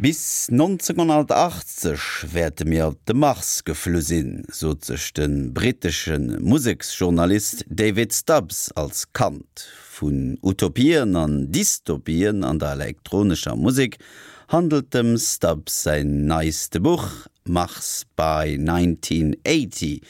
Bis 1980 wäerte mir op de Mars geflu sinn, sot sech de brittesche Museksjournalist David Stubbs als Kand. Vun Utopien an Dystopien an der elektronescher Musek handelt dem Stubbs säin neiste Buch Mars by 1980.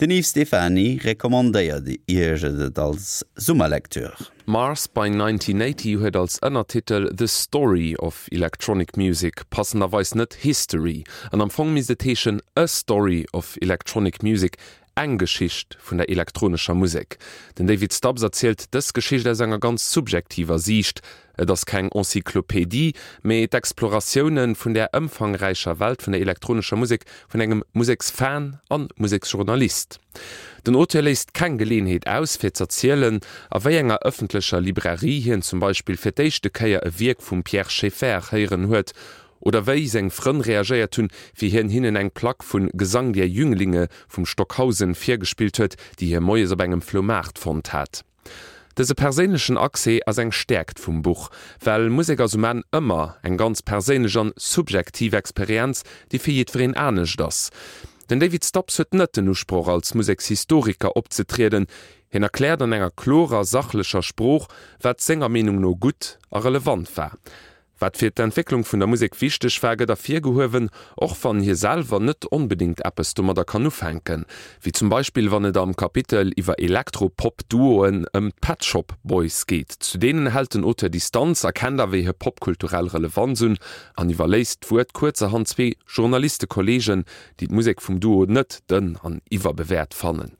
Den Yves Stephany recommandéiert Iech et als Summerlektür. Mars by 1980 huet als Ënnertitel The Story of Electronic Music, passenderweis net History, an am Fong misst et heeschen A Story of Electronic Music, eng Geschicht vun der elektronescher Musek. Den David Stubbs erzielt dës Geschicht aus enger ganz subjektiver Siicht, Et ass keng Encyclopédie, mee d'Exploratioune vun där ëmfangräicher Welt vun der elektronescher Musek vun engem Museksfan an Museksjournalist. Den Auteur léisst keng Geleeënheet aus, fir z'erzielen, a wéi enger ëffentlecher Librairie hien zum Beispill fir d'éischte Kéier e Wierk vum Pierre Schaeffer héieren huet, oder wéi seng Frënn reagéiert hunn, wéi hien hinnen eng Plack vun Gesang der Jünglinge vum Stockhausen virgespillt huet, déi hie moies op engem Floumaart fonnt hat. Dëse perséinlechen Accès ass eng Stäerkt vum Buch, well Musek ass um Enn ëmmer eng ganz perséinlech an subjektiv Experienz, déi fir jiddwereen anescht ass. Den David Stubbs huet net den Usproch als Musekshistoriker opzetrieden, hien erkläert an enger klorer, sachlecher Sprooch, wat senger Meenung no gutt a relevant war. Wat fir d'Entwécklung vun der Musek wichteg war, gëtt ervirgehuewen, och wann hie selwer net onbedéngt eppes domadder kann ufänken. Wéi zum Beispill wann et am Kapitel iwwer Elektro-Pop-Duoen ëm d'Pet Shop Boys geet. Zu deenen hält den Auteur Distanz, erkennt awer hir popkulturell Relevanz un an iwwerléisst d'Wuert kuerzerhand zwee Journalistekolleegen, déi d'Musek vum Duo net dënn an iwwerbewäert fannen.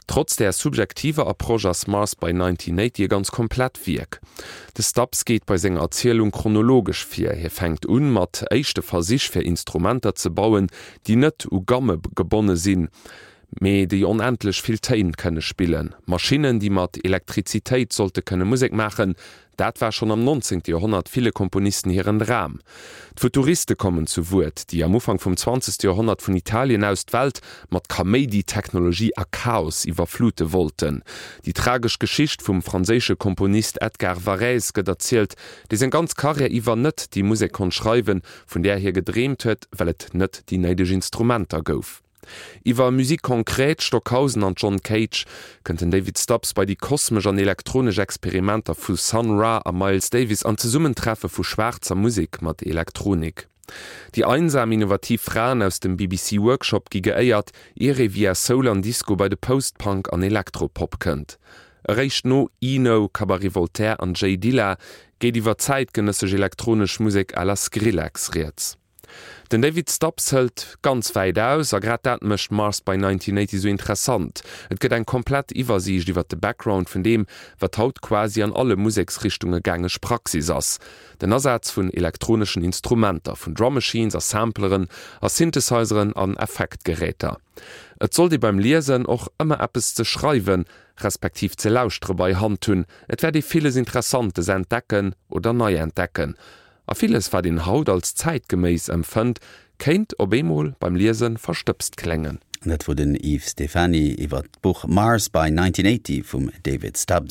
Trotz där subjektiver Approche ass Mars by 1980 e ganz komplett Wierk. De Stubbs geet bei senger Erzielung chronologesch vir, hie fänkt un mat éischte Versich fir Instrumenter ze bauen, déi net u Gamme gebonne sinn, mee déi onendlech vill Téin kënne spillen, Maschinnen, déi mat Elektrizitéit sollte kënne Musek maachen, Dat war schonn am 19. Joerhonnert ville Komponisten hiren Dram. D'Futuriste kommen zu Wuert, déi am Ufank vum 20. Joerhonnert vun Italien aus d'Welt mat Kaméidi, Technologie a Chaos iwwerflute wollten. Déi tragesch Geschicht vum franséische Komponist Edgar Varèse gëtt erzielt, dee seng ganz Karriär iwwer net déi Musek konnt schreiwen, vun där hie gedreemt huet, well et net déi néideg Instrumenter gouf. Iwwer Musique concrète, Stockhausen an John Cage kënnt den David Stubbs bei déi kosmesch an elektronesch Experimenter vu Sun Ra a Miles Davis an d'Zesummentreffe vu schwaarzer Musek mat Elektronik. Déi einsam innovativ Fraen aus dem BBC Workshop gi geéiert, ier ee via Soul an Disco bei de Post-Punk an Elektropop kënnt. Eréischt no Eno, Cabaret Voltaire an J Dilla geet iwwer zäitgenëssesch elektronesch Musek à la Skrillex rieds. Den David Stubbs hëlt ganz wäit aus, a grad dat mécht Mars by 1980 esou interessant. Et gëtt eng komplett Iwwersiicht iwwer de Background vun deem, wat haut quasi an alle Museksrichtunge gängeg Praxis ass, den Asaz vun elektroneschen Instrumenter, vun Drum Machines a Sampleren a Synthesizeren an Effektgeräter. Et sollt ee beim Liesen och ëmmer eppes ze schreiwen, respektiv ze lauschtere bei Hand hunn, et wäert ee villes Interessantes entdecken oder nei entdecken. A villes, wat een haut als zäitgeméiss empfënnt, kéint op eemol beim Liese verstëbst kléngen. Dat wor den Yves Stephany iwwer d'Buch Mars by 1980 vum David Stubbs.